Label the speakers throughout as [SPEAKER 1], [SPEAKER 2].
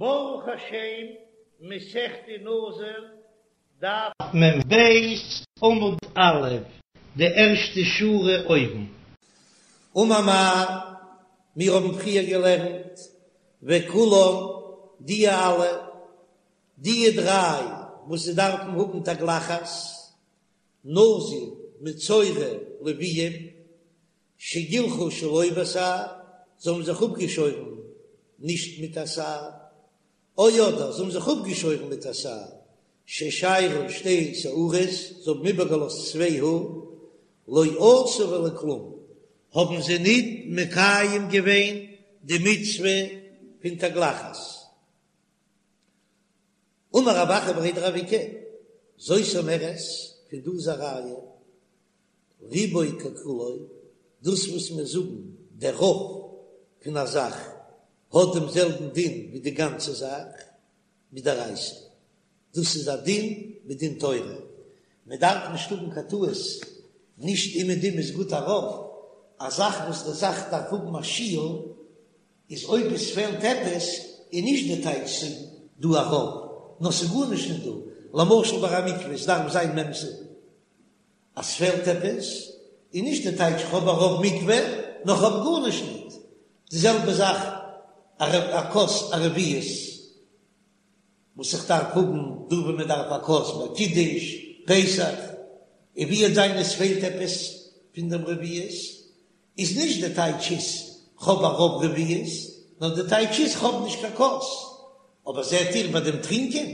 [SPEAKER 1] ברוך השם, מסכת נזיר, דף מ"ב, עמוד א', די ערשטע שורה אויבן. אמר מר, מיר האבן פריער געלערנט, וכולן, די אלע, די דריי וואס זיי דארפן האבן תגלחת, נזיר, מצורע, לוויים, שגילחו שלא בתער, זיי האבן זיך אפגעשוירן נישט מיט א תער, או אדער זיי האבן זיך אפגעשוירן מיט א תער, ששיירו שתי שערות, זיי האבן איבערגעלאזט צוויי האר, לא עשו ולא כלום, האבן זיי ניט מקיים געווען די מצוה פון תגלחת. אמר רב אחא בריה דרב איקא, זאת אומרת, פון דא איז א ראיה, רובו ככולו, דאס וואס מיר זאגן דער רוב פון א זאך האט דעם זעלבן דין ווי די גאנצע זאך, מדאורייתא, דאס איז א דין מדין תורה, מען דארף נישט האבן קיין טעות, נישט אומעדום איז גוט א רוב, א זאך וואס די זאך דארף האבן א שיעור, איז אויב עס פעלט עפעס איז נישט די טייטש ס'איז דא א רוב, נאר ס'איז גארנישט נישט דא, למשל ביי א מקווה עס דארף זיין מ' סאה, אז ס'פעלט עפעס איז נישט די טייטש כ'האב א רוב מקווה נאר כ'האב גארנישט ניט, די זעלבע זאך א כוס א רביעית וואס איך דארף האבן דא ווען מען דארף א כוס ביי קידוש פסח, און ווי וועט זיין עס פעלט עפעס פון דעם רביעית איז נישט די טייטש איז כ'האב א רוב רביעית, נאר די טייטש איז כ'האב נישט קיין כוס. אבער זעט איר ביי דעם טרינקען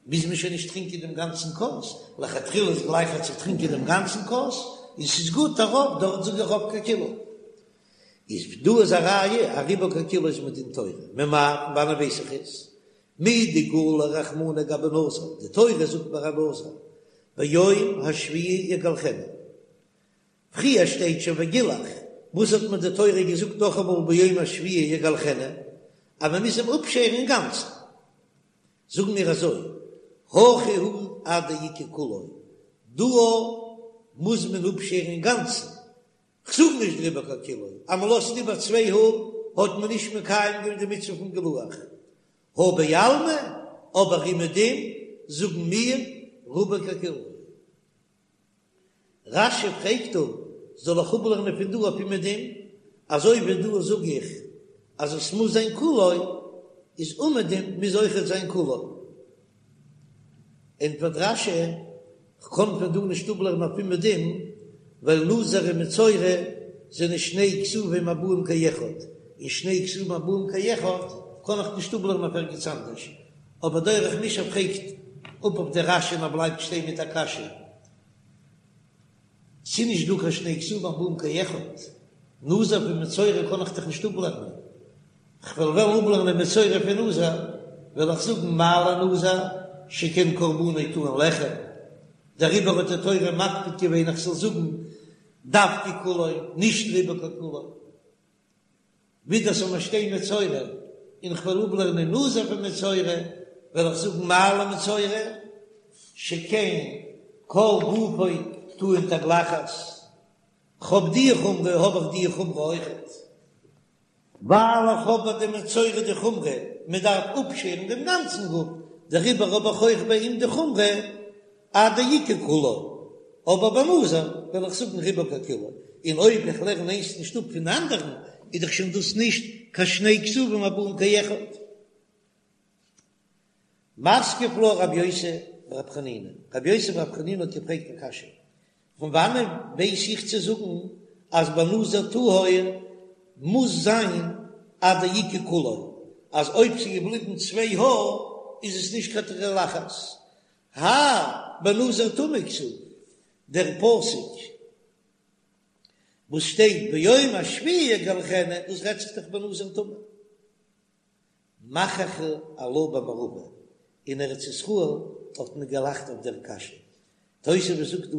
[SPEAKER 1] מוז מען שוין נישט טרינקען דעם גאנצן כוס, לכתחילה איז גלייכער צו טרינקען דעם גאנצן כוס, און ס'איז גוט א רוב, דארט זאג איך רובו ככולו. איז דא איז א ראיה אז רובו ככולו איז מדין תורה, ממאי פון וואנען ווייס איך עס? מדגלי רחמנא גבי נזיר, די תורה זאגט ביי א נזיר ביום השביעי יגלחנו, פריער שטייט שוין וגילח, וואס האט מיר די תורה געזאגט נאכאמאל ביום השביעי יגלחנו, אז מען מוז אים אפשערן אינגאנצן? זאגן מיר אזוי, הכא הוא עד דאיכא כולו, דא מוז מען אפשערן אינגאנצן, כ'זאג נישט רובו ככולו, אז מען לאזט איבער צוויי האר האט מען נישט מקיים געווען די מצוה פון גילוח, הא בעלמא, אבער אומעדום זאגן מיר רובו ככולו. רש"י פרעגט דא, זאל איך אפלערנען פון דא אויף אומעדום, אזוי ווי דא זאג איך אז עס מוז זיין כולו, איז אומעדום מוז אויכעט זיין כולו. ענטפערט רש"י, כ'קען פון דא נישט אפלערנען אויף אומעדום, ווייל נזיר און מצורע זענען שני כתובים הבאים כאחד, און שני כתובים הבאים כאחד קען איך נישט אפלערנען אויף ערגעץ אנדערש. אבער דרך מישב פרעגט אפ אויף די רש"י און ער בלייבט שטיין מיט א קשיא, ס'איז נישט דא קיין שני כתובים הבאים כאחד, נזיר פון מצורע קען איך דאך נישט אפלערנען, כ'וועל וועלן אפלערנען מצורע פון נזיר, וועל איך זאגן מה לנזיר שכן קרבנו טעון לחם, דעריבער האט די תורה מקפיד געווען איך זאל זאגן דווקא כולו, נישט רובו ככולו. ווידער זאל מיר שטיין מצורע און כ'וועל אפלערנען נזיר פון מצורע, וועל איך זאגן מה למצורע שכן כל גופו טעון תגלחת, כ'האב די חומרא האב איך די חומרא אויכעט, ווייל איך האב ביי די מצורע די חומרא מען דארף אפשערן דעם גאנצן גוף, דעריבער האב איך אויך ביי אים די חומרא עד דאיכא כולו, אבער ביי נזיר וועל איך זאגן רובו ככולו, און אויב איך לערן איינס נישט אפ פון אנדערן איז דאך שוין דאס נישט קיין שני כתובים הבאים כאחד. מתקיף לה רבי יוסי ברבי חנינא, רבי יוסי ברבי חנינא האט געפרעגט א קשיא, פון וואנען ווייס איך צו זאגן אז ביי נזיר טהור מוז זיין עד דאיכא כולו, אז אויב ס'איז געבליבן צוויי האר איז עס נישט קיין תגלחת, האי בנזיר טמא כתיב, דער פסוק וואס שטייט ביום השביעי יגלחנו, דאס רעדט זיך דאך בנזיר טמא. מחכו עלה במערבא, אין ארץ ישראל האט מען געלאכט אויף דער קשיא. תוספות זאגט דא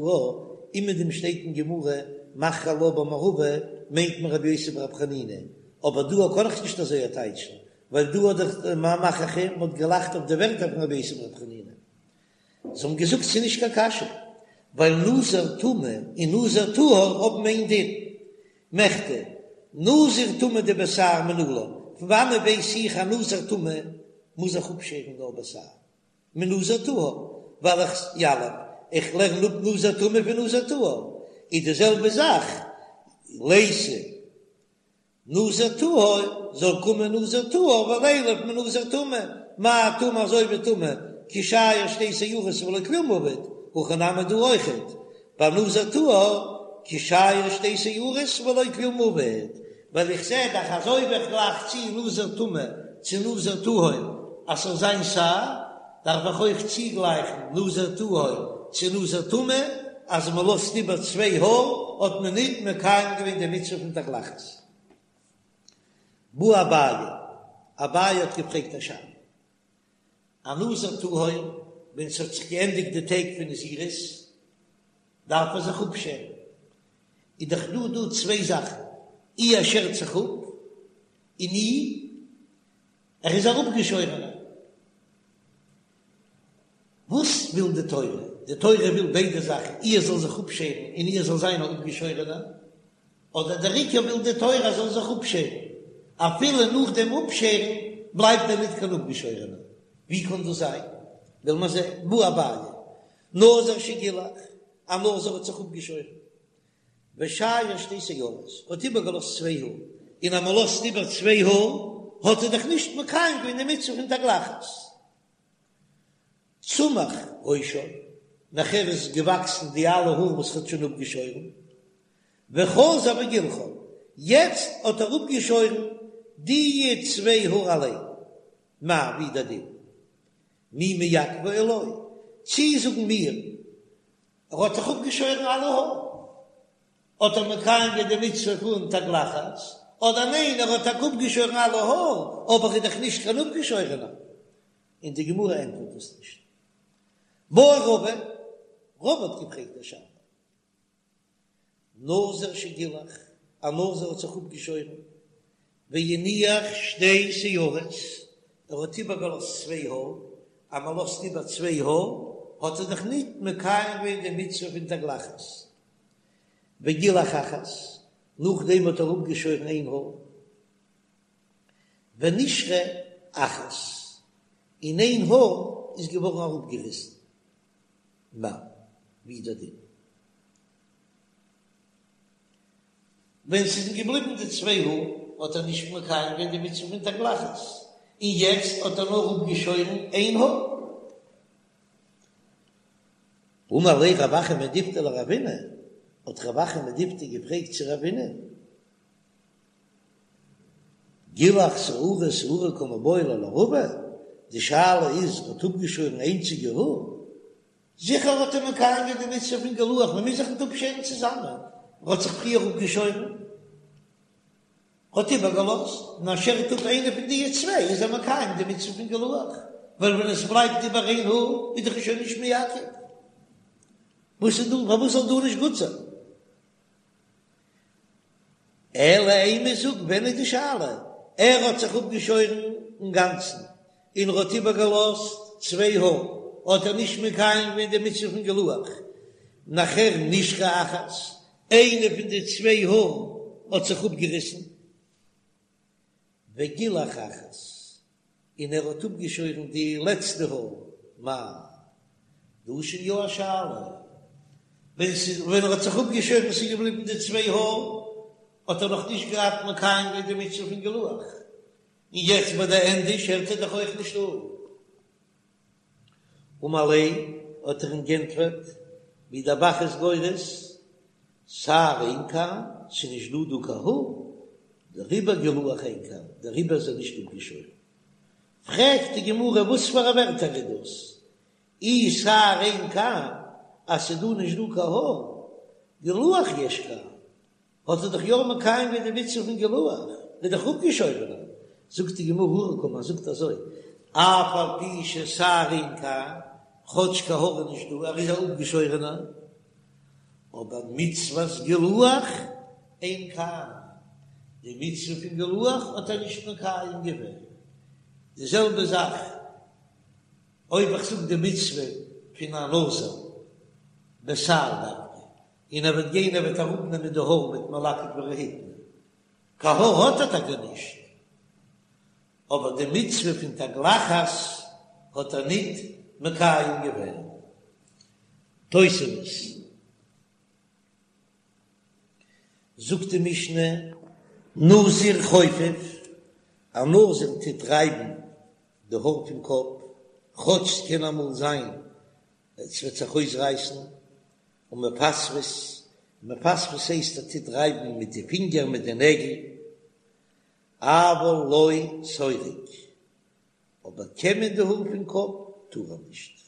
[SPEAKER 1] אומעדום שטייט אין גמרא מחכו עלה במערבא מיינט מען רבי יוסי ברבי חנינא, אבער דא קען איך נישט אזוי טייטשן, ווייל דא האט דאך מחכו מען האט געלאכט אויף די ווערטער פון רבי יוסי ברבי חנינא. זיי האבן געזאגט ס'איז נישט קיין קשיא, ווייל נזיר טמא און נזיר טהור האבן איין דין. מכדי, נזיר טמא דבתער מנלן, פון וואנעט ווייס איך אז נזיר טמא? מוז איך אפשערן נאר בתער מנזיר טהור, ווייל איך יליף, איך לערן אפ נזיר טמא פון נזיר טהור, איז די זעלבע זאך ליתי נזיר טהור, זאל קומען נזיר טהור ולילף מנזיר טמא, מה טמא אזוי ווי טמא, כי שייר שתי שערות ולא כלום עביד, הכא נמי דא אויכעט, ביי נזיר טהור, כי שייר שתי שערות ולא כלום עביד, ווייל איך זע דאך אז אויב איך גלייך צו נזיר טמא צו נזיר טהור אז ס'זאל זיין שער, דארף איך אויך צוגלייכן נזיר טהור צו נזיר טמא, אז מ'לאזט איבער צוויי האר האט מען ניט מקיים געווען די מצוה פון תגלחת. בעי אביי, אביי האט געפרעגט א שאלה. א נזיר טהור, ווען ס'האט זיך געענדיגט די טעג פון נזירות, דארף ער זיך אפשערן. איז דאך דא דא צוויי זאכן, אי ער שערט זיך אפ, און אי ער איז א אפגעשוירענער. וואס וויל די תורה? די תורה וויל ביידע זאכן, אי ער זאל זיך אפשערן און אי ער זאל זיין א אפגעשוירענער. אדער דער עיקר וויל די תורה ער זאל זיך אפשערן, אפילו נאך דעם אפשערן בלייבט ער ניט קיין אפגעשוירענער. ווי קען דאס זיין? וועל מיר זען. בעי אביי, נזיר שגילח, א נזיר האט זיך אפגעשוירן, ושייר שתי שערות, האט איבערגעלאזט צוויי האר, און אז מען לאזט איבער צוויי האר, האט ער דאך נישט מקיים געווען די מצוה פון תגלחת. צמח ראשו, נאכער איז געוואקסן די אלע האר וואס ער האט שוין אפגעשוירן, וחזר וגילחן, יעצט האט ער אפגעשוירן די צוויי האר אליין, מהו, ווי דער דין, מי מעכבי או לא, צי זאגן מיר ער האט זיך אפגעשוירן אלע האר, האט ער מקיים געווען די מצוה פון תגלחת, אדער ניין ער האט טאקע אפגעשוירן אלע האר, אבער איז דאך נישט קיין אפגעשוירענער, און די גמרא ענטפערט דאס נישט. בעי רבא, רבא האט געפרעגט א שאלה, נזיר שגילח, א נזיר האט זיך אפגעשוירן, והניח שתי שערות, ער האט איבערגעלאזט צוויי האר, אז מען לאזט איבער צוויי האר, האט ער דאך ניט מקיים געווען די מצוה פון תגלחת. וגילח אחת, נאכדעם האט ער אפגעשוירן איין האר. ונשרה אחת, און איין האר איז געווארן אראפגעריסן. מהו, ווי איז דער דין? ווען ס'איז געבליבן די צוויי האר האט ער נישט מקיים געווען די מצוה פון תגלחת, און יעצט האט ער נאר אפגעשוירן איין האר. אמר ליה רב אחא מדיפתי לרבינא, האט רב אחא מדיפתי געפרעגט צו רבינא, גילח שערה שערה קא מיבעיא ליה לרבא, די שאלה איז האט אפגעשוירן איינציגע האר, זיכער האט ער מקיים געווען די מצוה פון גילוח, מען מוז זיך ניט אפשערן צוזאמען, ער האט זיך פריער אפגעשוירן, האט איבערגעלאזט, און ער שערט אפ איינע פון די צוויי איז ער מקיים די מצוה פון גילוח, ווייל ווען עס בלייבט איבער איין האר איז דאך שוין נישט מעכב, וואס איז דא, פארוואס זאל דא נישט גוט זיין? אלא אימא, זאג, ווען איז די שאלה? ער האט זיך אפגעשוירן אינגאנצן און ער האט איבערגעלאזט צוויי האר, האט ער נישט מקיים געווען די מצוה פון גילוח, נאכער נשרה אחת, איינע פון די צוויי האר האט זיך אפגעריסן, וגילח אחת, און ער האט אפגעשוירן די לעצטע האר, מהו, דא איז שוין יא א שאלה, ווען ס'איז ווען ער האט זיך אפגעשוירן ס'איז געבליבן די צוויי האר, האט ער נאך נישט געהאט מקיים געווען די מצוה פון גילוח, און יעצט ביי די ענדע שערט ער דאך אויך נישט אפ. אמר ליה, האט ער אים גענטפערט, ווי דער ב"ח איז גורס, שער אין כאן, ס'איז נישט דא דא קיין האר, דעריבער גילוח אין כאן, דעריבער איז ער נישט אפגעשוירן. פרעגט די גמרא וואס פאר א ווערטער איז דאס, אי שער אין כאן, אז ס'איז דא נישט דא קיין האר, גילוח יש כאן, האט ער דאך יא מקיים געווען די מצוה פון גילוח, איז דאך אפגעשוירענער. זאגט די גמרא הכי קאמר, זאגט אזוי, אף על פי ששער אין כאן, כאטש קיין האר איז נישט דא, ער איז א אפגעשוירענער, אבער מצוות גילוח אין כאן, די מצוה פון גילוח האט ער נישט מקיים געווען. די זעלבע זאך אויב איך זאג די מצוה פון א נזיר בתער דווקא, און ער וועט גיין ער וועט אראפנעמען די האר מיט מלקט ורהיטני, קיין האר האט ער טאקע נישט. אבער די מצוה פון תגלחת האט ער ניט מקיים געווען. תוספות. זאגט די משנה, נזיר חופף, א נזיר טוט רייבן די האר פון קאפ, כאטש ס'קען אמאל זיין עס וועט זיך אויסרייסן, ומפספס, מפספס הייסט ער טוט רייבן מיט די פינגער מיט די נעגל, אבל לא סורק, אבער קעמען די האר פון קאפ טאר ער נישט.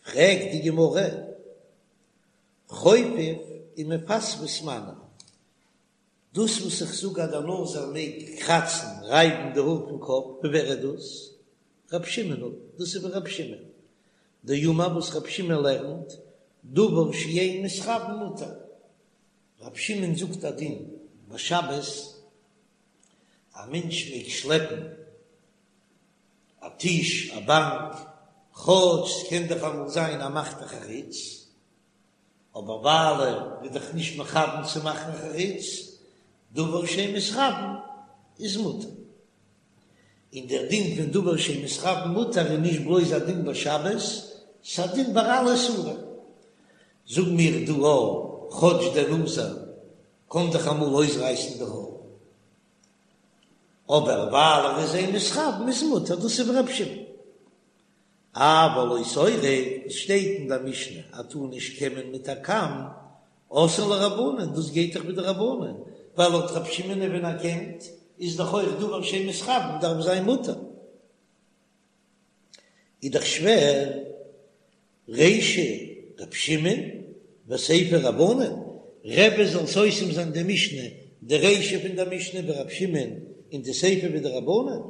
[SPEAKER 1] פרעגט די גמרא, חופף ומפספס מני, דאס וואס איך זאג אז דער נזיר מעג קראצן, רייבן די האר פון קאפ, ווי ווער איז דאס? רב שמעון היא, דאס איז ווי רב שמעון דאמר וואס רב שמעון לערנט, דבר שאין מתכוין מותר. רב שמעון זאגט א דין ביי שבת, א מענטש מעג שלעפן א טיש, א באנק, כאטש ס'קען דאך אמאל זיין ער מאכט א חריץ, אבער ווייל ער איז דאך נישט מכוון צו מאכן א חריץ, דבר שאין מתכוין איז מותר. און דער דין פון דבר שאין מתכוין מותר איז נישט בלויז א דין ביי שבת, ס'איז א דין ביי אלע איסורים. זאג מיר דא א, כאטש דער נזיר קען דאך אמאל אויסרייסן די האר, אבער ווייל ער איז אין מתכוין איז מותר, דאס איז ווי רב שמעון. אבל לא סורק, עס שטייט אין דער משנה אז טאר נישט קעמען מיט א קאם, אתאן לרבנן, דאס גייט דאך ווי די רבנן, ווייל לויט רב שמעון ווען ער קעמט איז דאך אויך דבר שאין מתכוין דארף זיין מותר. איז דאך שווער, רישא רב שמעון וסיפא רבנן, רבי זאל סותם זיין די משנה, די רישא פון דער משנה ווי רב שמעון און די סיפא ווי די רבנן.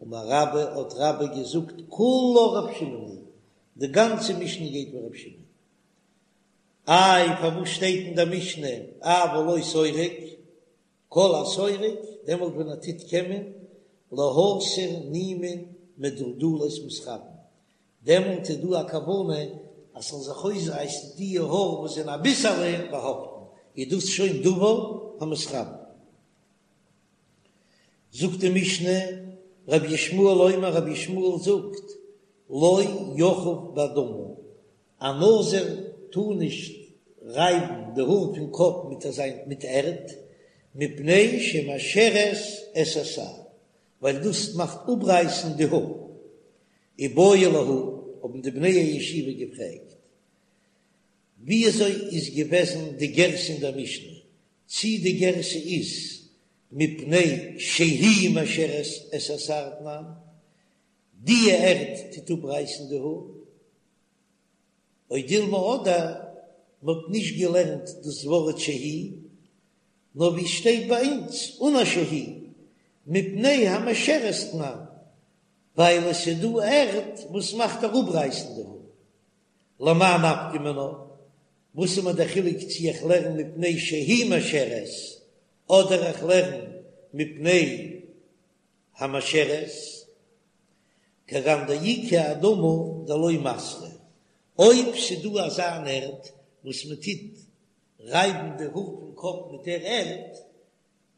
[SPEAKER 1] אמר רבה האט רבה געזאגט כולה רב שמעון היא, די גאנצע משנה גייט ווי רב שמעון. איי פארוואס שטייט אין דער משנה אבל לא סורק, כל הסורק, דעמאלט ווען ער טוט קעמען, להסיר נימין מדולדלות מתכוין, דעמאלט איז דא א כוונה אז ס'זאל זיך אויסרייסן די האר וואס זענען אביסעלע באהאפטן, איז דאס שוין דבר המתכוין. זאגט די משנה, רבי ישמעאל אומר, רבי ישמעאל זאגט, לא יכוף באדמה, א נזיר טאר נישט רייבן די האר פון קאפ מיט אזיין מיט ערד, מפני שמאשרת את השער, ווייל דאס מאכט אפרייסן די האר. איבעיא להו, האבן די בני הישיבה געפרעגט, וויאזוי איז געוועזן די גירסא אין דער משנה, צי די גירסא איז מפני שהיא מאשרת את השער תנן, די ערד טוט אפרייסן די האר, או דילמא אדער מ'האט נישט געלערנט דאס ווארט שהיא, נאר ווי עס שטייט ביי אונז אן א שהיא, מפני המשרת תנן, ווייל עס איז דא ערד וואס מאכט אראפרייסן די האר. למאי נפקא מינה? וואס איז מיר דער חילוק צי איך לערן מפני שהיא משרת אדער איך לערן מפני המשרת? כגון דאיכא אדמה דלא מסרא, אויב ס'דא אזא אן ערד וואס מ'טוט רייבן די האר פון קאפ מיט דער ערד,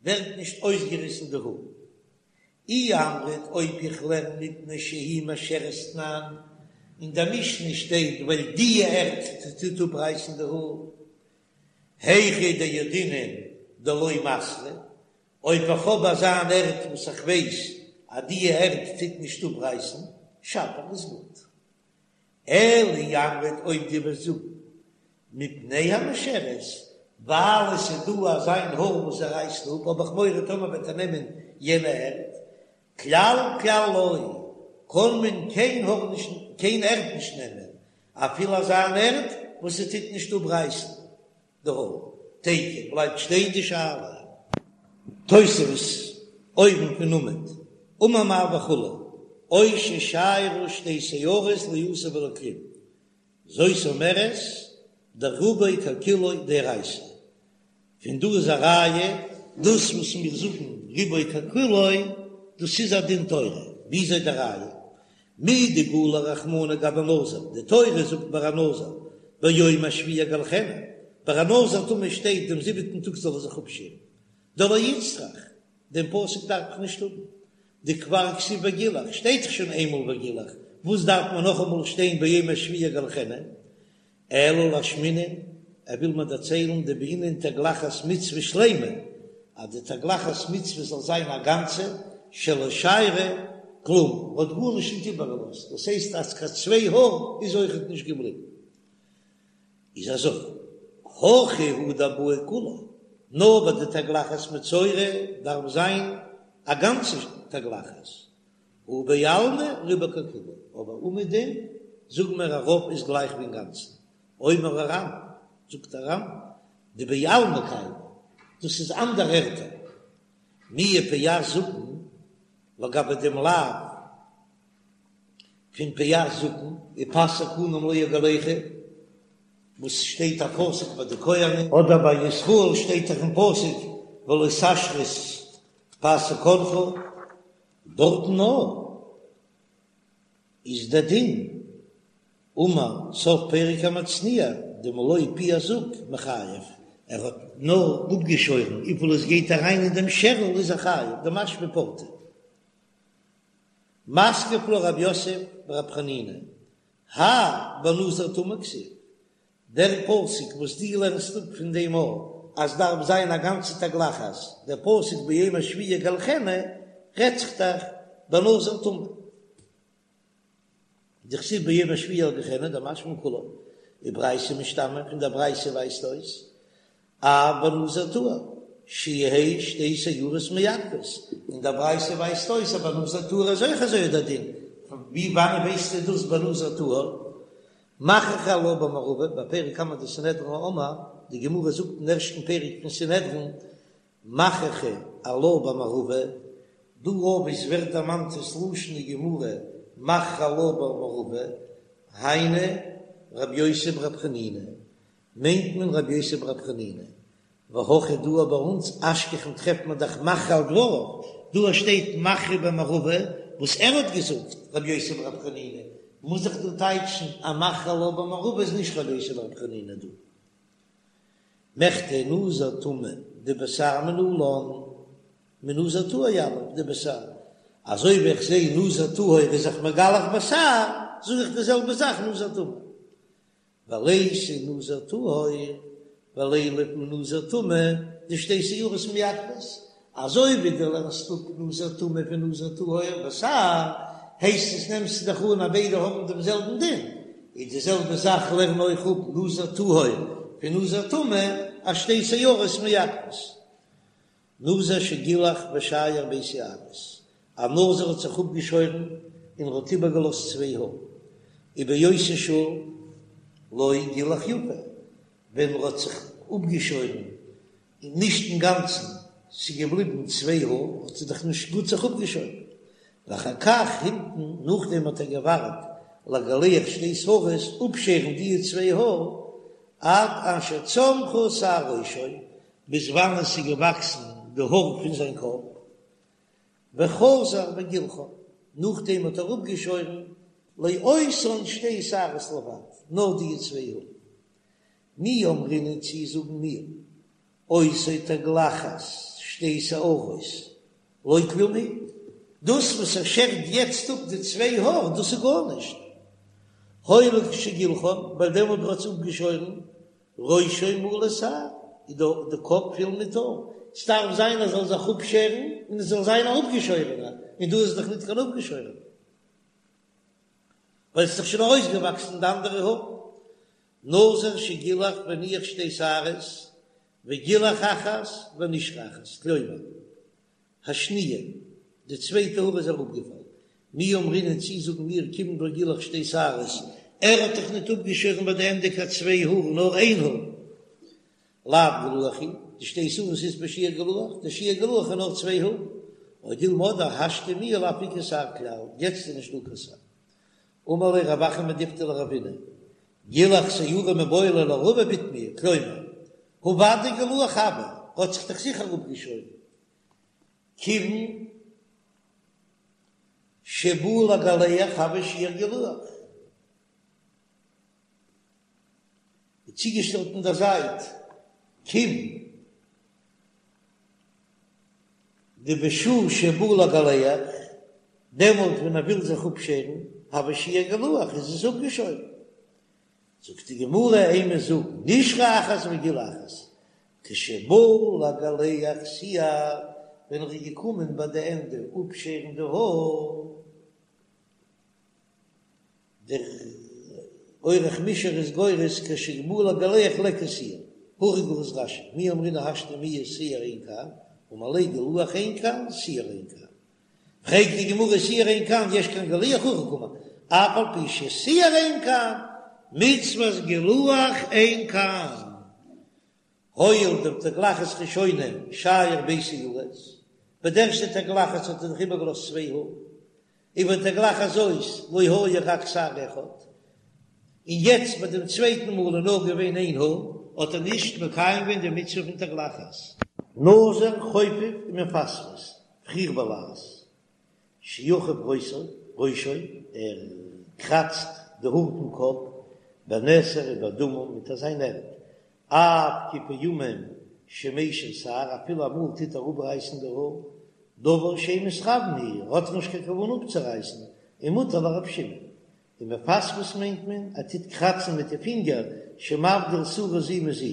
[SPEAKER 1] ווערט נישט אויסגעריסן די האר. אי אמרת אויב איך לערן מפני שהיא משרת תנן, אין דער משנה שטייט ווייל די ערד טוט אפרייסן די האר, היכא דידעינן דלא מסרא, אויב איך האב אזא אן ערד וואס איך ווייס אז די ערד טוט נישט אפרייסן, שפיר איז גוט. אלא אי אמרת אויב דו וועסט זאגן מפני המשרת, ווייל עס איז דא אזא איין האר וואס ער רייסט אפ, האב איך מורא טאמער וועט ער נעמען יענע ערד, כלל כלל לא, קען מען קיין האר נישט קיין ערד נישט נעמען, אפילו אזא אן ערד וואס עס טוט נישט אפרייסן די האר, תיקו בלייבט שטיין די שאלה. תוספות, אויבן פון עמוד, אמר מר וכו', או ששיירו שתי שערות לא עשה ולא כלום, זאת אומרת דרובו ככולו דאורייתא, פון דא איז א ראיה דאס וואס מיר זאגן רובו ככולו דאס איז א דין תורה, וויאזוי די ראיה? מדגלי רחמנא גבי נזיר, די תורה זאגט ביי א נזיר ביום השביעי יגלחנו, ביי א נזיר טמא שטייט דעם זיבעטן טאג זאל ער זיך אפשערן, דלא איצטריך. דעם פסוק דארף איך נישט האבן, דכבר כתיב וגילח, שטייט דאך שוין איינמאל וגילח, וואס דארף מען נאכאמאל שטיין ביום השביעי יגלחנו? אלא לאשמועינן, ער וויל מיר דערציילן דבעינן תגלחת מצוה שלימה, אז די תגלחת מצוה זאל זיין א גאנצע, שלא שיירא כלום, מ'האט גארנישט נישט איבערגעלאזט, דאס הייסט אז קיין צוויי האר איז אויכעט נישט געבליבן. איז אזוי, הכא הוא דבעי כולה, נאר ביי די תגלחת מצורע דארף זיין א גאנצע תגלחת, הא בעלמא רובו ככולו, אבער אומעדום זאגן מיר א רוב איז גלייך ווי אינגאנצן, אומר הר"ן, זאגט דער ר"ן, דבעלמא קיימא, דאס איז אנדערע ערטער, מיהא פאת זקן, לגבי דעם לאו פון פאת זקן, ופאת זקנם לא יגלחו, וואס שטייט א פסוק ביי די כהנים, אדער ביי ישראל שטייט דאך אין פסוק ולא תשחית פאת זקנך, דארטן נאר איז דער דין, אמר סוף פרק המצניע, דמלא פי הזוג מיחייב, ער האט נאר אפגעשוירן וויפיל עס גייט אריין אין דעם שערל איז ער חייב, דמשמע פורתא. מתקיף לה רב יוסף ברב חנינא, האי בנזיר טמא כתיב, דער פסוק וואס דו לערנסט אפ פון דעם א אז דארף זיין א גאנצע תגלחת, דער פסוק ביום השביעי יגלחנו רעדט זיך דאך בנזיר טמא, דכתיב ביום השביעי יגלחנו דמשמע כולה, וברייתא משתמע, פון דער ברייתא ווייזט אויס אף בנזיר טהור, שיהא שתי שערות מעכבות, און דער ברייתא ווייזט אויס אז בנזיר טהור איז אויך אזוי דער דין, ווי וואנען ווייסטו דאס בנזיר טהור? מכריחי עלה במערבא, בפרק קמא דסנהדרין אמר, די גמרא זאגט אין ערשטן פרק פון סנהדרין, מכריחי עלה במערבא, דא וואו עס ווערט דערמאנט דאס לשון אין גמרא מכריחי עלה במערבא, היינו רבי יוסי ברבי חנינא, מיינט מען רבי יוסי ברבי חנינא, והכא דא ביי אונז אשכחן טרעפט מען דאך מכריע על דבריו, דא שטייט מכריחי במערבא וואס ער האט געזאגט רבי יוסי ברבי חנינא, מוז איך דא טייטשן אז מכריחי עלה במערבא איז נישט רבי יוסי ברבי חנינא דא. מכדי נזיר טמא דבשער מנלן, מנזיר טהור יליף דבשער, אזוי ווי איך זעה נזיר טהור איז זיך מגלח בשער, זאג איך די זעלבע זאך נזיר טמא. וליתי נזיר טהור ולילף מנזיר טמא דשתי שערות מעכבות, אזוי ווי דו לערנסט אפ נזיר טמא פון נזיר טהור בשער, הייסט עס נעמסטו דאך אן אז ביידע האבן דעם זעלבן דין, איז די זעלבע זאך לערן אויך אפ נזיר טהור פון נזיר טמא אז שתי שערות מעכבות. נזיר שגילח ושייר ב' שערות, א נזיר האט זיך אפגעשוירן און ער האט איבערגעלאזט צוויי האר, ובאותה שעה לא גילח יפה, ווען ער האט זיך אפגעשוירן און נישט אינגאנצן, ס'איז געבליבן צוויי האר, האט ער דאך נישט גוט זיך אפגעשוירן, ואחר כך המתין, נאכדעם האט ער געווארט לגלח שתי שערות, אפשערן די צוויי האר, עד אשר צמחו שער ראשו, ביז וואנען עס איז געוואקסן די האר פון זיין קאפ, וחזר וגילחן, נאכדעם האט ער אפגעשוירן לאותן שתי שערות לבד, נאר די צוויי האר. מי אמרינן צי זאגן מיר, אותה תגלחת שתי שערות, לא כלום היא, דאס וואס ער שערט יעצט אפ די צוויי האר, דאס איז גארנישט, הואיל וכשגילחן, ווייל דעמאלט האט ער עס אפגעשוירן, ראשו מלא שער, איז דא די קאפ פיל מיט האר, ס'דארף זיין ער זאל זיך אפשערן און עס זאל זיין א אפגעשוירענער, און דא איז דאך ניט קיין אפגעשוירענער, ווייל ס'איז דאך שוין ארויסגעוואקסן די אנדערע האר. נזיר שגילח והניח שתי שערות, וגילח אחת ונשרה אחת, כלומר, השניה, די צווייטע האר איז אראפגעפאלן. מי אמרינן צי זאגן מיר כיון דלא גילח שתי שערות, ער האט דאך ניט אפגעשוירן ביי די ענדע קיין צוויי האר נאר איין האר. לאו גילוח הוא, דשתי שערות אית ביה שיעור גילוח, די שיעור גילוח איז נאר צוויי האר. או דילמא אדער השתא מיהא לאו איכא שער כלל, יעצט איז נישט דא קיין שער. אמר ליה רב אחא מדיפתי לרבינא, גילח שערה מיבעי ליה לרבא בתמיה, כלומר, הא ודאי גילוח הוה, האט זיך דאך זיכער אפגעשוירן. כיוון שבא לגלח הוי שיעור גילוח. איז צוגעשטעלט אין דער זייט כיוון. דבשעה שבא לגלח, דעמאלט ווען ער וויל זיך אפשערן, הוי שיעור גילוח, איז עס אפגעשוירן. זאגט די גמרא, אימא, זאג, נשרה אחת וגילח אחת, כשבא לגלח שער, ווען ער איז געקומען ביי די ענדע אפשערן די האר, דער אורך מישר איז גורס כשבא לגלח ליכא שער, הכי גורס רש"י, מי אמרינן השתא מיהת שער אין כאן, אמר ליה גילוח אין כאן, שער אין כאן. פרעגט די גמרא שער אין כאן יש כאן גילוח הכי קאמר, אף על פי ששער אין כאן, מצות גילוח אין כאן. הואיל דבתגלחת ראשונה שייר ב' שערות, ביי די ערשטע תגלחת האט ער דאך איבערגעלאזט צוויי האר, ובתגלחת זאת לא היה רק שער אחד, און יעצט ביי דעם צווייטן מאל איז נאר געווען איין האר, האט ער נישט מקיים געווען די מצוה פון תגלחת. נזיר חופף ומפספס, פריך בלעז, שיחוף ראשו, ראשו, ער קראצט די האר פון קאפ, בנתר ובאדמה מיט אזא ערד, אף כי פעמים שמשיר שער, אפילו אמאל טוט ער אפרייסן די האר, דבר שאין מתכוין הוא, ער האט נישט קיין כוונה אפצורייסן, ומותר לר' שמעון. און מפספס מיינט מען, ער טוט קראצן מיט די פינגער, שמבדיל שערה זו מזו,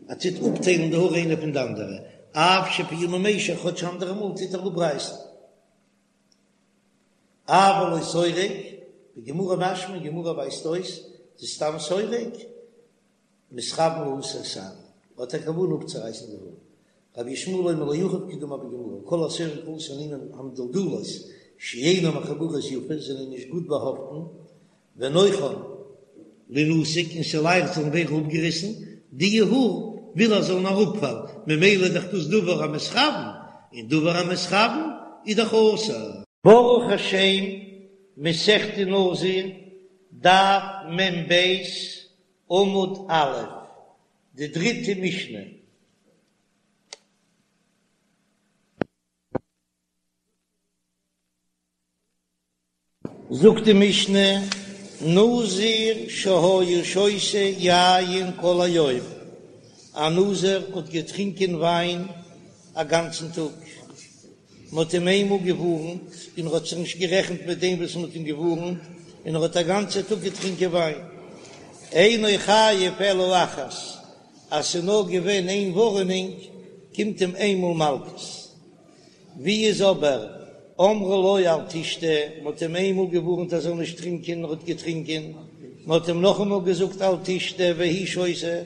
[SPEAKER 1] ער טוט אפטיילן די האר איינע פון די אנדערע, אף שפעמים משיר, כאטש אנדערע מאל טוט ער אפרייסן. אבל לא סורק, בגמרא משמע, אין גמרא ווייזט אויס, דסתם סורק, מתכוין להסיר שער, האט א כוונה אפצורייסן די האר. רבי ישמעאל אומר לא יחוף כדאמר בגמרא, כל הסורק להסיר נימין המדולדלות שאינן מחוברות יפה זענען נישט גוט באהאפטן, ונוחן לינתק און ס'לייכט זאלן ווערן אפגעריסן, די האר וויל ער זאלן אראפפאלן, ממילא איז דאך דאס דבר המתכוין, און דבר המתכוין איז דאך אסור. ברוך השם, מסכת נזיר, דף מ"ב, עמוד א', די דריטע משנה. זאגט די משנה, נזיר שהיה שותה יין כל היום, א נזיר האט געטרינקען וויין א גאנצן טאג, מען האט אים איינמאל געווארנט און ער האט זיך נישט גערעכנט מיט דעם וואס מען האט אים געווארנט, און ער האט א גאנצע טאג געטרינקען וויין. אינו חייב אלא אחת, אז ס'איז נאר געווען איין ווארענונג קומט אים איינמאל מלקות. ווי איז אבער אמרו לו אל תשתה, מען האט אים איינמאל געווארנט ער זאל נישט טרינקען, ער האט געטרינקען, מען האט אים נאכאמאל געזאגט אל תשתה והוא שותה,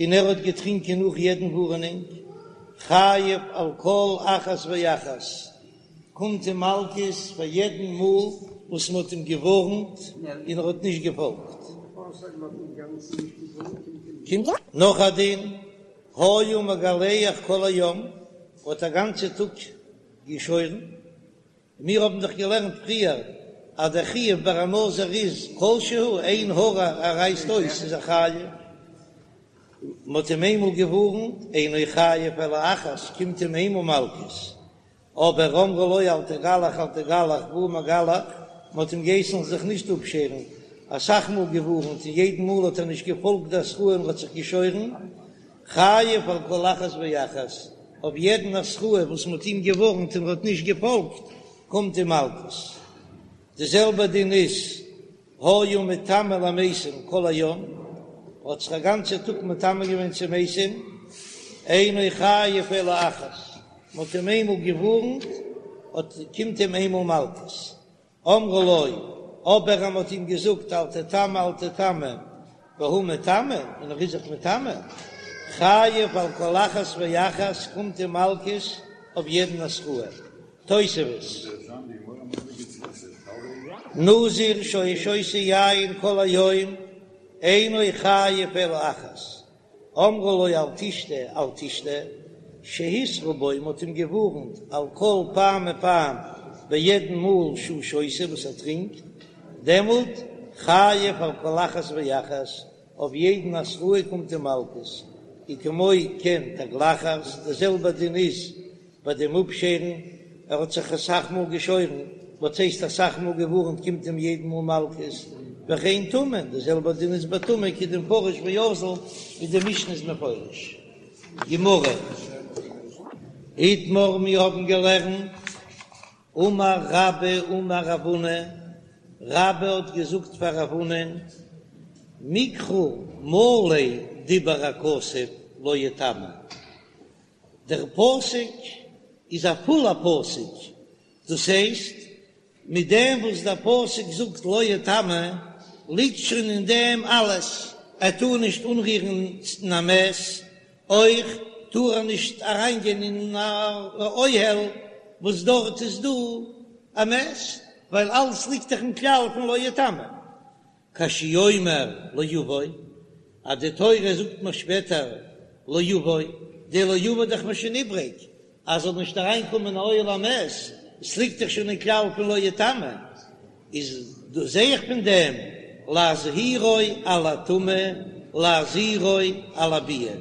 [SPEAKER 1] און ער האט געטרינקען נאך יעדן ווארענונג, חייב על כל אחת ואחת, קומט אים מלקות פאר יעדן מאל וואס מען האט אים געווארנט און ער האט נישט געפאלגט. קומט נאך א דין, היה מגלח כל היום, האט א גאנצע טאג געשוירן, מיר האבן דאך געלערנט פריער אז דער חיוב ביי א נזיר איז כל שהוא, איין האר ער רייסט אויס איז ער חייב, מען האט אים איינמאל געווארנט, אינו חייב אלא אחת, קומט אים איינמאל מלקות, אבער אמרו לו אל תגלח אל תגלח והוא מגלח, מען האט אים געהייסן זיך נישט אפשערן, אסאך מאל געווארנט און יעדן מאל האט ער נישט געפאלגט די התראה און האט זיך געשוירן, חייב על כל אחת ואחת, אויף יעדן התראה וואס מ'האט אים געווארנט און ער האט נישט געפאלגט, קומט אים מלקות. די זעלבע דין איז, היה מטמא למתים כל היום, האט זיך א גאנצע טאג מטמא געווען צו מתים, אינו חייב אלא אחת, מ'האט אים איינמאל געווארנט, האט קומט אים איינמאל מלקות. אמרו לו, אבער אז מ'האט אים געזאגט אל תטמא אל תטמא, והוא מטמא, און ער איז זיך מטמא, חייב על כל אחת ואחת, קומט אים מלקות אויף יעדן התראה. תוספות. נזיר שהיה שותה יין כל היום, אינו חייב אלא אחת, אמרו לו אל תשתה אל תשתה, שהתרו בו, מ'האט אים געווארנט על כל פעם ופעם ביי יעדן מאל שהוא שותה וואס ער טרינקט, דעמאלט חייב על כל אחת ואחת, אויף יעדן התראה קומט אים מלקות, וכמו כן תגלחת, די זעלבע דין איז ביי דעם אפשערן, ער האט זיך אסאך מאל געשוירן, וואס הייסט אסאך מאל געווארנט קומט אים יעדן מאל מלקות, וכן טומאה, די זעלבע דין איז ביי טומאה כדמפרש ואזיל, ווי די משנה איז מפרש. גמרא. איתמר מיר האבן געלערנט, אמר רבה אמר רב הונא, רבה האט געזאגט פאר רב הונא'ן, מקרא מלא דיבר הכתוב לא יטמא, דער פסוק איז א פולע פסוק, דאס הייסט מיט דעם וואס דער פסוק זאגט לא יטמא, ליגט שוין אין דעם אלעס, ער טאר נישט אנרירן אין א מת, אויך טאר ער נישט אריינגיין אין א אוהל וואס דארט איז דא א מת, ווייל אלעס ליגט דאך אין כלל פון לא יטמא. כשהוא אומר לא יבוא, אז די תורה זאגט מיר שפעטער לא יבוא, די לא יבוא דאך מיר שוין איבריג, אז זאל נישט אריין קומען אין אוהל המת, עס ליגט דאך שוין אין כלל פון לא יטמא, איז דא זעה איך פון דעם להזהירו על הטומאה להזהירו על הביאה,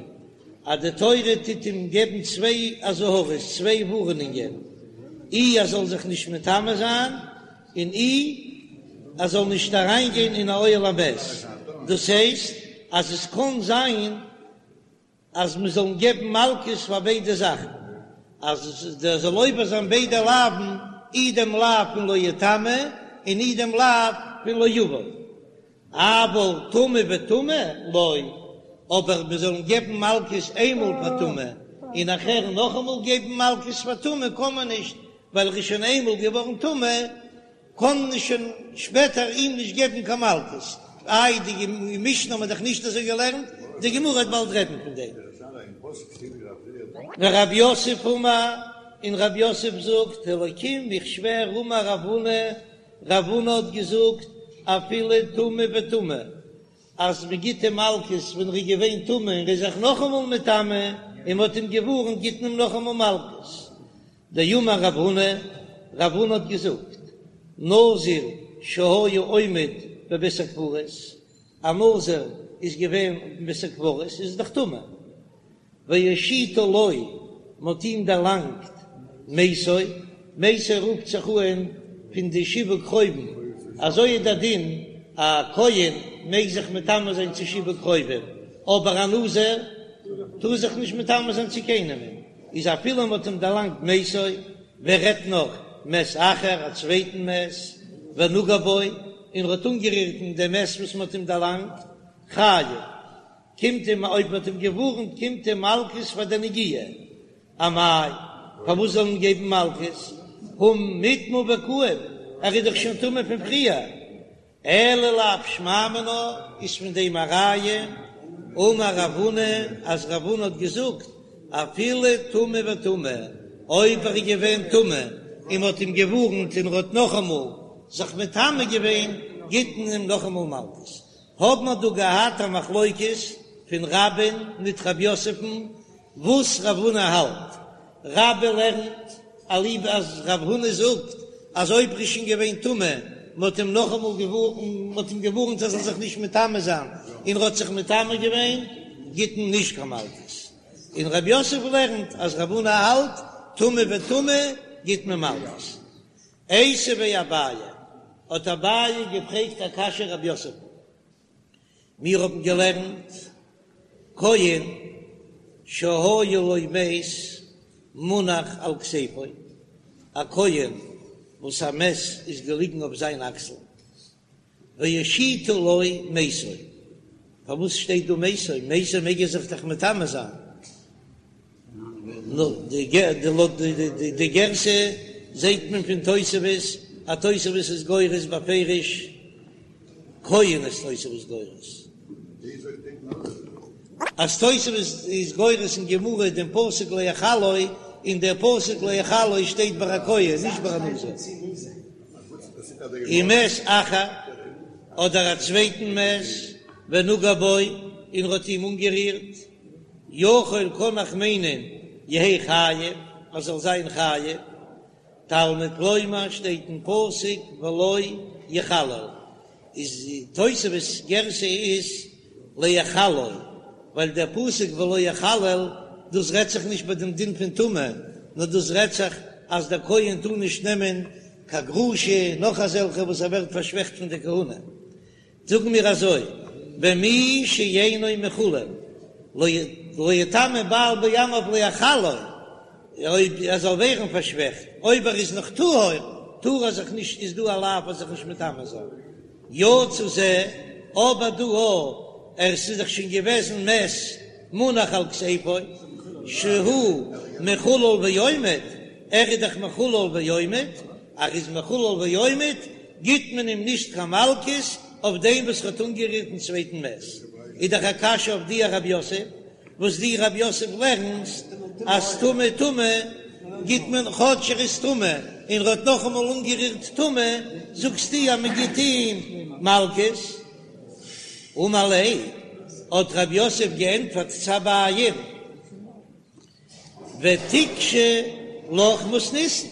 [SPEAKER 1] אז די תורה טוט אים געבן צוויי אזהרות, צוויי ווארענונגען, אי ער זאל זיך נישט מטמא זיין, און אי ער זאל נישט אריין גיין אין א אוהל המת, דאס הייסט אז עס קען זיין אז מען זאל געבן מלקות פאר ביידע זאכן, אז דער זאל עובר זיין ביידע לאוו'ן, אי דעם לאו פון לא יטמא און אי דעם לאו פון לא יבוא, אבל טמא וטמא לא, אבער מען זאל געבן מלקות איינמאל פאר טומאה און נאכהער נאכאמאל געבן מלקות פאר טומאה קען מען נישט, ווייל ער איז שוין איינמאל געווארן טמא, קען מען שוין שפעטער אים נישט געבן קיין מלקות. איי די משנה האט מען דאך נישט אזוי געלערנט, די גמרא וועט באלד רעדן פון דעם. ורב יוסף אמר, און רב יוסף זאגט, האלקים איך שווער אמר רב הונא, רב הונא האט געזאגט, אפילו טמא וטמא, אז מען גיט אים מלקות ווען ער איז געווען טמא און ער איז זיך נאכאמאל מטמא און מען האט אים געווארנט גיט מען אים נאכאמאל מלקות. דאמר רב הונא, רב הונא האט געזאגט, נזיר שהיה עומד בבית הקברות, א נזיר איז געווען אין בית הקברות, איז דאך טמא, והושיטו לו, מען האט אים דערלאנגט מתו, מתו רופט זיך אן פון די שבעה קרובים, אזוי איז דער דין, א כהן מעג זיך מטמא זיין צו שבעה קרובים, אבער א נזיר טאר זיך נישט מטמא זיין צו קיינעם. איז אפילו מ'האט אים דערלאנגט מתו, ווער רעדט נאך מת אחר, א צווייטן מת, ונגע בו, און ער האט אנגערירט אין דעם מת וואס מ'האט אים דערלאנגט, חייב, קומט אים, אויב מ'האט אים געווארנט, קומט אים מלקות פאר די נגיעה. אמאי, פארוואס זאל מען געבן מלקות? הא מיטמא וקאים, ער איז דאך שוין טמא פון פריער. אלא לאו שמע מינה איז פון דעם א ראיה, אמר רב הונא אז רב הונא האט געזאגט אפילו טמא וטמא, אויב ער איז געווען טמא און מ'האט אים געווארנט און ער האט נאכאמאל זיך מטמא געווען גיט מען אים נאכאמאל מלקות. האב מיר דא געהאט א מחלוקת פון רבה'ן מיט רב יוסף'ן וואס רב הונא האלט, רבה לערנט אליבא אז רב הונא זאגט אז אויב ר'איז שוין געווען טמא, מ'האט אים נאכאמאל געווארנט, מ'האט אים געווארנט ער זאל זיך נישט מטמא זיין, און ר'האט זיך מטמא געווען, גיט מען נישט קיין מלקות. און רב יוסף לערנט אז רב הונא האלט טמא וטמא גיט מען מלקות. איתיביה אביי, האט אביי געפרעגט א קשיא רב יוסף. מיר האבן געלערנט כהן שהיה לו מת מונח על כתפו, א כהן וואס א מת איז געליגן אויף זיין אקסל, והושיטו לו מתו, פארוואס שטייט דא מתו? מתו מעג ער זיך דאך מטמא זיין, לויט די גירסא זעהט מען פון תוספות אז תוספות איז גורס בפירוש כהן איז תוספות גורס אז תוספות איז גורס אין גמרא דעם פסוק להחלו און דער פסוק להחלו שטייט ביי א כהן נישט ביי א נזיר ומת אחר אדער א צווייטן מת ונגע בו און ער האט אים אנגערירט. יכול קאן איך מיינען יהא חייב אז זאל זיין חייב, תלמוד לומר שטייט אין פסוק ולא יחלל, איז תוספות גירסא איז להחלו, ווייל דער פסוק ולא יחלל דאס רעדט זיך נישט ביי דעם דין פון טומאה, נאר דאס רעדט זיך אז דער כהן טאר נישט נעמען קיין גרושה נאך אזעלכע וואס ער ווערט פארשוועכט פון די כהונה. זאגן מיר אזוי, במי שאינו מחולל, לא יטמא בעל בעמיו להחלו. אויב ער זאל ווערן פארשוועכט, אויב ער איז נאך טהור, טאר ער זיך נישט, איז דא א לאו ער זיך נישט מטמא זיין. יצא זה, אבער דא א, ער ס'איז דאך שוין געוועזן מת מונח על כתפו, שהוא מחולל ועומד, ער איז דאך מחולל ועומד, ער איז מחולל ועומד, גיט מען אים נישט קיין מלקות אויף דעם וואס ער האט אנגערירט דעם צווייטן מת. איז דאך א קשיא אויף דיר רב יוסף, וואס דו רב יוסף לערנסט אז טמא טומאה גיט מען כאטש ער איז טמא און ער האט נאכאמאל אנגערירט טומאה, זאגסטו אז מען גיט אים מלקות? אמר ליה, האט רב יוסף געענטפערט צו אביי'ן, ותיקשי לך מתניתין,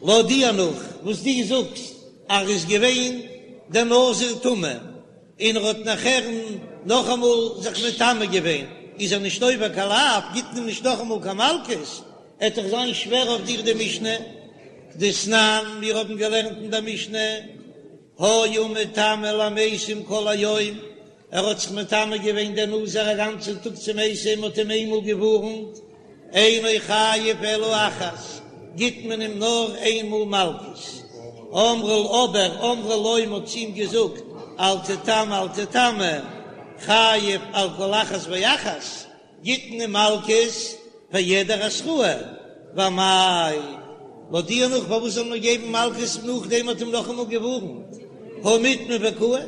[SPEAKER 1] לויט דיר נאך וואס דו זאגסט אז ער איז געווען דער נזיר טמא און ער האט נאכער נאכאמאל זיך מטמא געווען איז ער נישט עובר קיין לאו, גיט מען אים נישט נאכאמאל קיין מלקות, עט דאך זיין שווער אויף דיר די משנה, דתנן, מיר האבן געלערנט אין דער משנה, היה מטמא למתים כל היום, ער האט זיך מטמא געווען דער נזיר א גאנצן טאג צו מתים, מ'האט אים איינמאל געווארנט, אינו חייב אלא אחת, גיט מען אים נאר איין מאל מלקות. אמרו אבער אמרו לו מ'האט צו אים געזאגט, אל תטמא אל תטמא, חייב על כל אחת ואחת, גיט מען אים מלקות פאר יעדער התראה, ואמאי, לויט דיר נאך פארוואס זאל מען געבן מלקות נאכדעם מ'האט אים נאכאמאל געווארנט, הא מיטמא וקאי,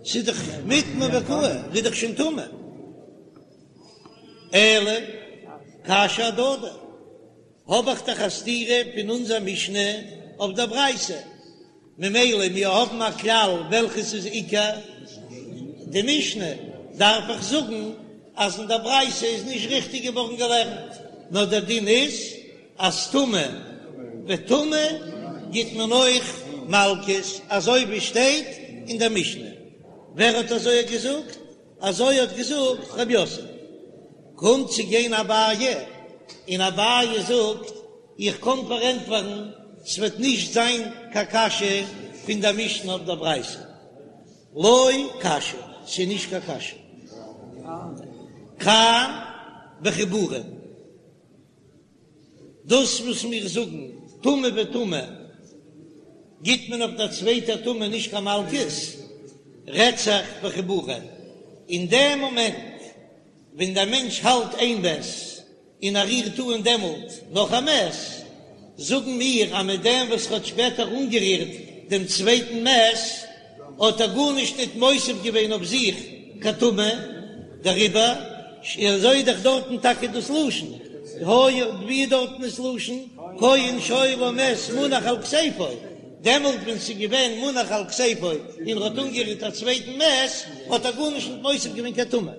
[SPEAKER 1] ס'איז דאך מיטמא וקאי, ער איז דאך שוין טמא. אלא קשיא אהדדי, האב איך דאך א סתירה פון אונזער משנה אויף דער ברייתא, ממילא מיר האבן א כלל וועלכעס איז עיקר די משנה, דארף איך זאגן אז אין דער ברייתא איז נישט ריכטיג געווארן געלערנט, נאר דער דין איז אז טמא וטמא גיט מען אויך מלקות, אזוי ווי שטייט אין דער משנה. ווער האט אזוי געזאגט? אזוי האט געזאגט רב יוסף. קומט צו גיין אביי, און אביי זאגט, איך קען פארענטפערן, ס'וועט נישט זיין קיין קשיא פון דער משנה אויף דער ברייתא. לא קשיא, ס'איז נישט קיין קשיא. כאן בחיבורין. דאס וואס מיר זאגן טמא וטמא גיט מען אויף דער צווייטער טומאה נישט קיין מלקות, רעדט זיך בחיבורין. אין דעם מאמענט ווען דער מענטש האלט איין מת און ער רירט אן דעמאלט נאך א מת, זאגן מיר אז מיט דעם וואס ער האט שפעטער אנגערירט דעם צווייטן מת האט ער גארנישט ניט מוסיף געווען אויף זיך קיין טומאה, דעריבער אזוי איז דאך דארטן טאקע דאס לשון, היה ווי איז דארטן דאס לשון, כהן שהיה לו מת מונח על כתפו, דעמאלט ווען ס'איז געווען מונח על כתפו און ער האט אנגערירט א צווייטן מת, האט ער גארנישט ניט מוסיף געווען קיין טומאה.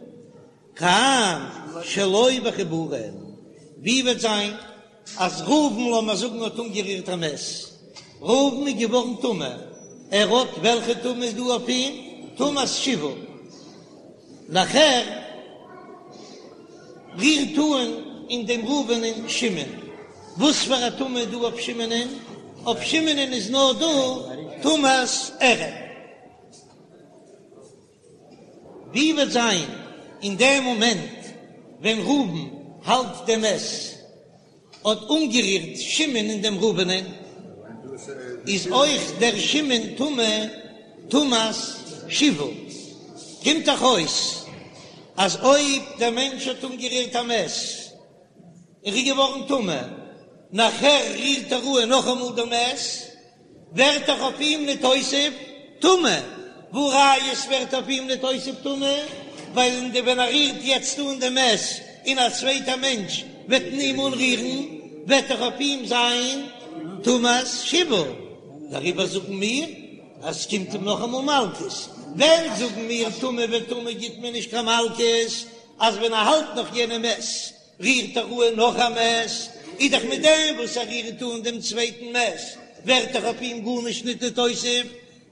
[SPEAKER 1] כאן שלא בחיבורין, ווי וועט זיין אז ראובן לאמיר זאגן האט אנגערירט א מת, ראובן איז געווארן טמא, ער האט וועלכע טומאה איז דא אויף אים? טומאת שבעה, נאכער רירט אן אין דעם ראובנ'ען שמעון, וואס פאר א טומאה איז דא אויף שמעונ'ען? אויף שמעונ'ען איז נאר דא טומאת ערב. ווי וועט זיין אין דעם מאמענט ווען ראובן האלט דעם מת האט אנגערירט שמעון אין דעם ראובנ'ען, איז אויך דער שמעון טמא טומאת שבעה. קומט דאך אויס אז אויב דער מענטש האט אנגערירט א מת און ר'איז געווארן טמא, נאכער רירט ער אן נאכאמאל דעם מת, ווערט דאך אויף אים ניתוסף טומאה, והא ראיה ס'ווערט אויף אים ניתוסף טומאה, ווייל אין די ווען ער רירט יעצט אן דעם מת און א צווייטע מענטש וועט אים אנרירן וועט דאך אויף אים זיין טומאת שבעה, דעריבער זאגן מיר אז ס'קומט אים נאכאמאל מלקות, ווען זאגן מיר טמא וטמא גיט מען נישט קיין מלקות, אז ווען ער האלט נאך יענע מת רירט ער אן נאך א מת, איז דאך מיט דעם וואס ער רירט אן דעם צווייטן מת, ווערט דאך אויף אים גארנישט ניט נתוסף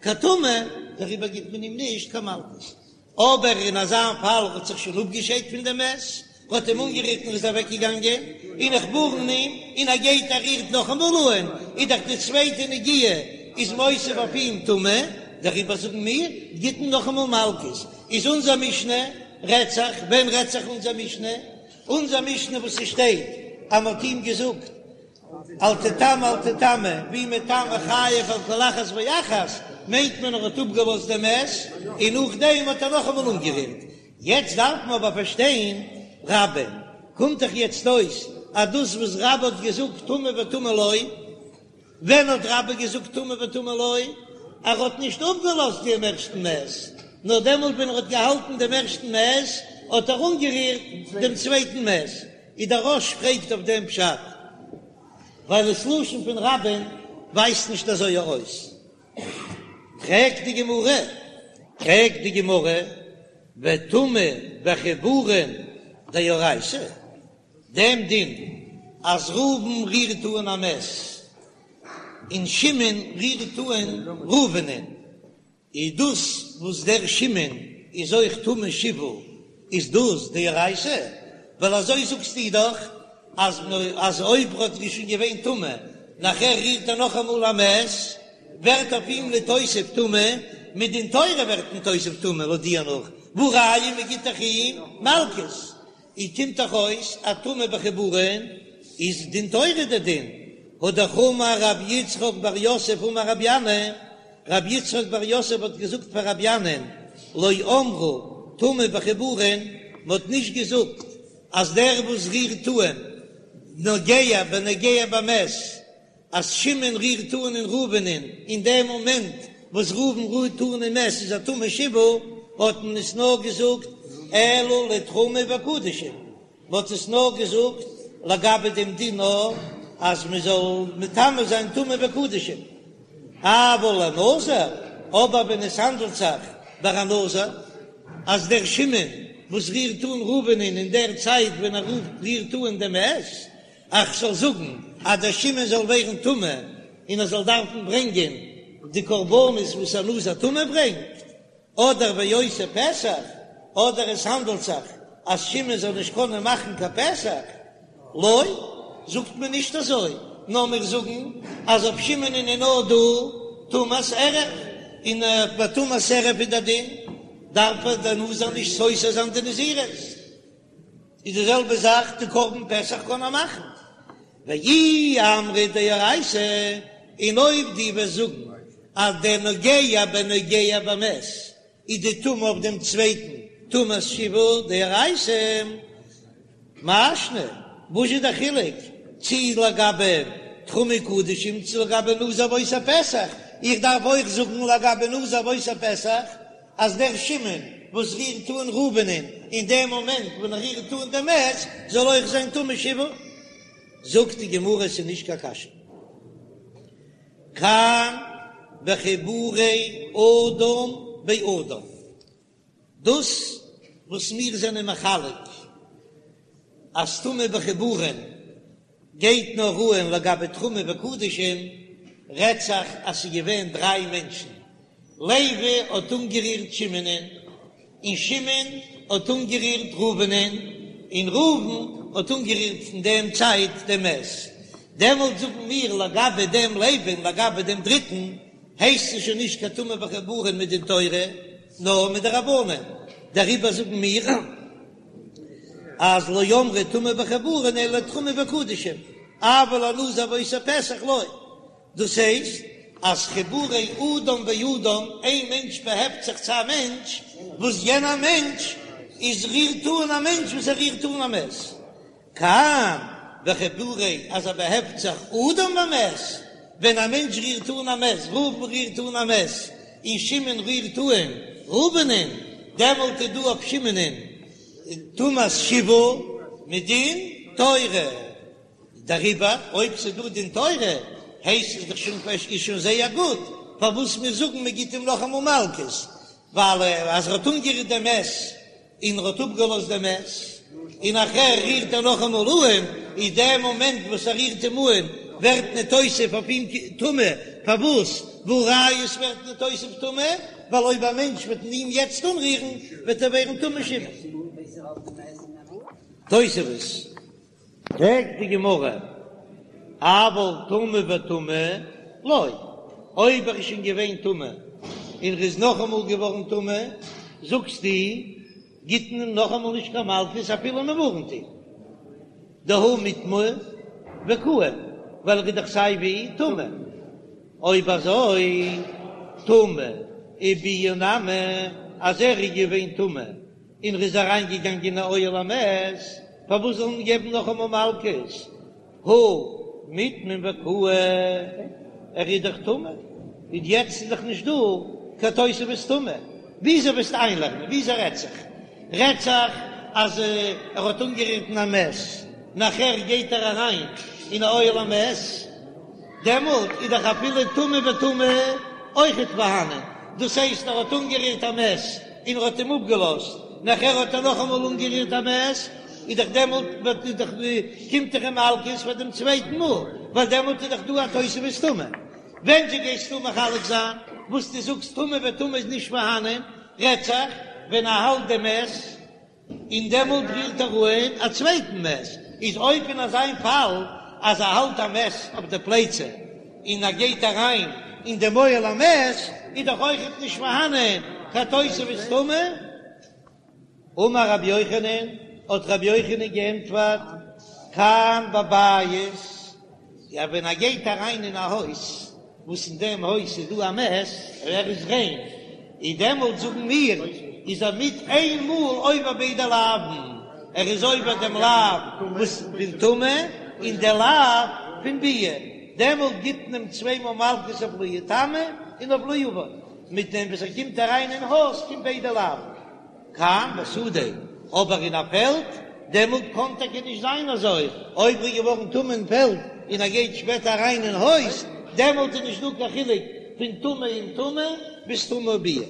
[SPEAKER 1] קיין טומאה, דעריבער גיט מען אים נישט קיין מלקות. אבער אין אזא פאל האט זיך שוין אפגעשיידט פון דעם מת, האט אים אנגערירט און איז אוועקגעגאנגען, און איך ווארן אים, און ער גייט ער רירט נאכאמאל אן, איז דאך די צווייטע נגיעה איז מוסיף אויף אים טומאה, דעריבער זאגן מיר, גיט מען נאכאמאל מלקות. איז אונזער משנה רעדט זיך, ווען רעדט זיך אונזער משנה? אונזער משנה וואס ס'שטייט. אז מ'האט אים געזאגט אל תטמא אל תטמא, והוא מטמא חייב על כל אחת ואחת, מיינט מען ער האט אפגעלאזט דעם מת און נאכדעם האט ער נאכאמאל אנגערירט. יעצט דארף מען אבער פארשטיין רבה, קומט דאך יעצט אויס אז דאס וואס רבה האט געזאגט טמא וטמא לא, ווען האט רבה געזאגט טמא וטמא לא? ער האט נישט אפגעלאזט דעם ערשטן מת, נאר דעמאלט ווען ער האט געהאלטן דעם ערשטן מת האט ער אנגערירט דעם צווייטן מת. איז דער רא"ש פרעגט אויף דעם פשט, ווייל עס לשון פון רבה'ן ווייזט נישט אזוי ארויס. פרעגט די גמרא, פרעגט די גמרא, וטומאה בחיבורין דאורייתא, דעם דין אז ראובן רירט אן א מת און שמעון רירט אן ראובנ'ען, איז דאס וואס דער שמעון איז אויך טמא שבעה איז דאס דאורייתא? ווייל אזוי זאגסטו דאך אז אז אויב ר'האט שוין געווען טמא נאכער רירט ער נאכאמאל א מת ווערט אויף אים נתוסף טומאה, מדין תורה ווערט נתוסף טומאה לויט דיר נאך, והא ראיה מ'גיט דאך אים מלקות. און קומט דאך אויס אז טומאה בחיבורין איז דין תורה די דין, הא דאך אמר רב יצחק בר יוסף אמר רבי ינאי, רב יצחק בר יוסף האט געזאגט פאר רבי ינאי'ן, לא אמרו טומאה בחיבורין, מען האט נישט געזאגט אז דער וואס רירט אן נוגע בנוגע במת, אז שמעון רירט אן אין ראובנ'ען אין דעם מאמענט וואס ראובן רירט אן אין מת איז ער טמא שבעה, האט מען עס נאר געזאגט אלא לתרומה וקדשים, מען האט עס נאר געזאגט לגבי דעם דין נאר אז מען זאל מטמא זיין תרומה וקדשים, אבל לנזיר, אבער ווען עס האנדלט זיך ביי א נזיר אז דער שמעון וואס רירט אן ראובנ'ען אין דער צייט ווען ער רירט אן דעם מת, איך זאל זאגן אז דער שמעון זאל ווערן טמא און ער זאל דארפן ברענגען די קרבנות וואס א נזיר טמא ברענגט, אדער ועושה פסח, אדער עס האנדלט זיך אז שמעון זאל נישט קענען מאכן קיין פסח, לא, זאגט מען נישט אזוי, נאר מיר זאגן אז אויף שמעון איז נאר דא טומאת ערב, און ביי טומאת ערב איז דער דין, דארף דער נזיר נישט סותר זיין די נזירות. איז די זעלבע זאך די קרבן פסח קען מען מאכן ואי אמרת דאורייתא, און אויב דו וועסט זאגן אז דער נוגע בנוגע במת איז די טומאה אויף דעם צווייטן טומאת שבעה דאורייתא, מאי שנא, וואס איז דער חילוק צי לגבי תרומה קדשים צי לגבי נזיר ועושה פסח, איך דארף אויך זאגן לגבי נזיר ועושה פסח אז דער שמעון וואס רירט אן ראובנ'ען אין דעם מאמענט ווען ער רירט אן דעם מת זאל אויך זיין טמא שבעה, זאגט די גמרא עס איז נישט קיין קשיא, כאן בחיבורי אדם באדם, דאס וואס מיר זענען מחלק אז טומאה בחיבורין גייט נאר אן לגבי תרומה וקדשים, רעדט זיך אז ס'איז געווען דריי מענטשן, לוי האט אנגערירט שמעונ'ען, און שמעון האט אנגערירט ראובנ'ען, און ראובן האט אנגערירט אין דעם צייט דעם מת, דעמאלט זאגן מיר לגבי דעם לוי און לגבי דעם דריטן הייסט עס שוין נישט קיין טומאה בחיבורין מדין תורה נאר מדרבנן, דעריבער זאגן מיר. אז לא אמרו טומאה בחיבורין אלא תרומה וקדשים, אבל לנזיר ועושה פסח לא, דאס הייסט אז חיבורי אדם באדם, איין מענטש באהעפט זיך צו א מענטש, וואס יענער מענטש איז רירט אן א מענטש וואס ער רירט אן א מת, כאן בחיבורי אז ער באהעפט זיך אדם במת, ווען א מענטש רירט אן א מת, ראובן רירט אן א מת, און שמעון רירט אן ראובנ'ען, דעמאלט איז דא אויף שמעונ'ען טומאת שבעה מדין תורה, דעריבער אויב ס'איז דא דין תורה הייסט עס דאך שוין איז שוין זייער גוט, פארוואס מיר זאגן מען גיט אים נאכאמאל מלקות, ווייל אז ער האט אנגערירט דעם מת און ער האט אפגעלאזט דעם מת, און נאכער רירט ער נאכאמאל אהן, איז דער מאמענט וואס ער רירט אים אהן ווערט נתוסף אויף אים טומאה, פארוואס? והא ראיה עס ווערט נתוסף טומאה, ווייל אויב א מענטש וועט אים יעצט אנרירן וועט ער ווערן טמא שבעה. תוספות. פרעגט די גמרא, אבל טמא וטמא לא, אויב ער איז שוין געווען טמא און ער איז נאכאמאל געווארן טמא, זאגסטו גיט מען אים נאכאמאל נישט קיין מלקות אפילו מען ווארנט אים. דהא מיטמא וקאים, ווייל ער איז דאך סיי ווי טמא. אויב אזוי טומאה וביאה נמי, אז ער איז געווען טמא און ער איז אריין געגאנגען אין אוהל המת, פארוואס זאל מען געבן נאכאמאל מלקות? הא מיטמא וקאי, ער איז דאך טמא, און יעצט איז דאך נישט דא קיין תוספת טומאה, וויאזוי וועסטו איינלערנען? וויאזוי רעדט זיך? רעדט זיך אז ער האט אנגערירט אין א מת, נאכער גייט ער אריין אין א אוהל המת, דעמאלט איז דאך אפילו טומאה וטומאה אויכעט פארהאנען, דאס הייסט ער האט אנגערירט א מת און ער האט אים אפגעלאזט, נאכער האט ער נאכאמאל אנגערירט א מת, איז דאך דעמאלט וועט איז דאך קומט דאך אים מלקות פאר דעם צווייטן מאל, ווייל דעמאלט איז דאך דא א תוספת טומאה. ווען זשע גייסטו מחלק זיין וואס דו זאגסט טומאה וטומאה איז נישט פארהאנען, רעדט זיך ווען ער האלט דעם מת און דעמאלט רירט ער אן א צווייטן מת, איז אויב אין אזיין פאל אז ער האלט א מת אויף די פלייצע און ער גייט אריין אין דעם אוהל המת, איז דאך אויכעט נישט פארהאנען קיין תוספת טומאה. אמר רבי יוחנן, האט רבי יוחנן געענטפערט, כאן בבית, יא ווען ער גייט אריין אין א הויז, וואס אין דעם הויז איז דא א מת, ער איז ריין, איז דעמאלט זאגן מיר, איז ער מיט איין מאל עובר ביידע לאווין, ער איז עובר דעם לאו וואס פון טומאה, און די לאו פון ביאה, דעמאלט גיט מען אים צוויי מאל מלקות אויף לא יטמא און אויף לא יבא. מיט דעם וואס ער קומט אריין אין הויז קומט ביידע לאוין. כאן בשדה, אבער אין א פעלד, דעמאלט קאן טאקע נישט זיין אזוי, אויב ער איז געווארן טמא אין פעלד און ער גייט שפעטער אריין אין הויז, דעמאלט איז נישט דא קיין חילוק פון טומאה און טומאה ביז טומאה וביאה.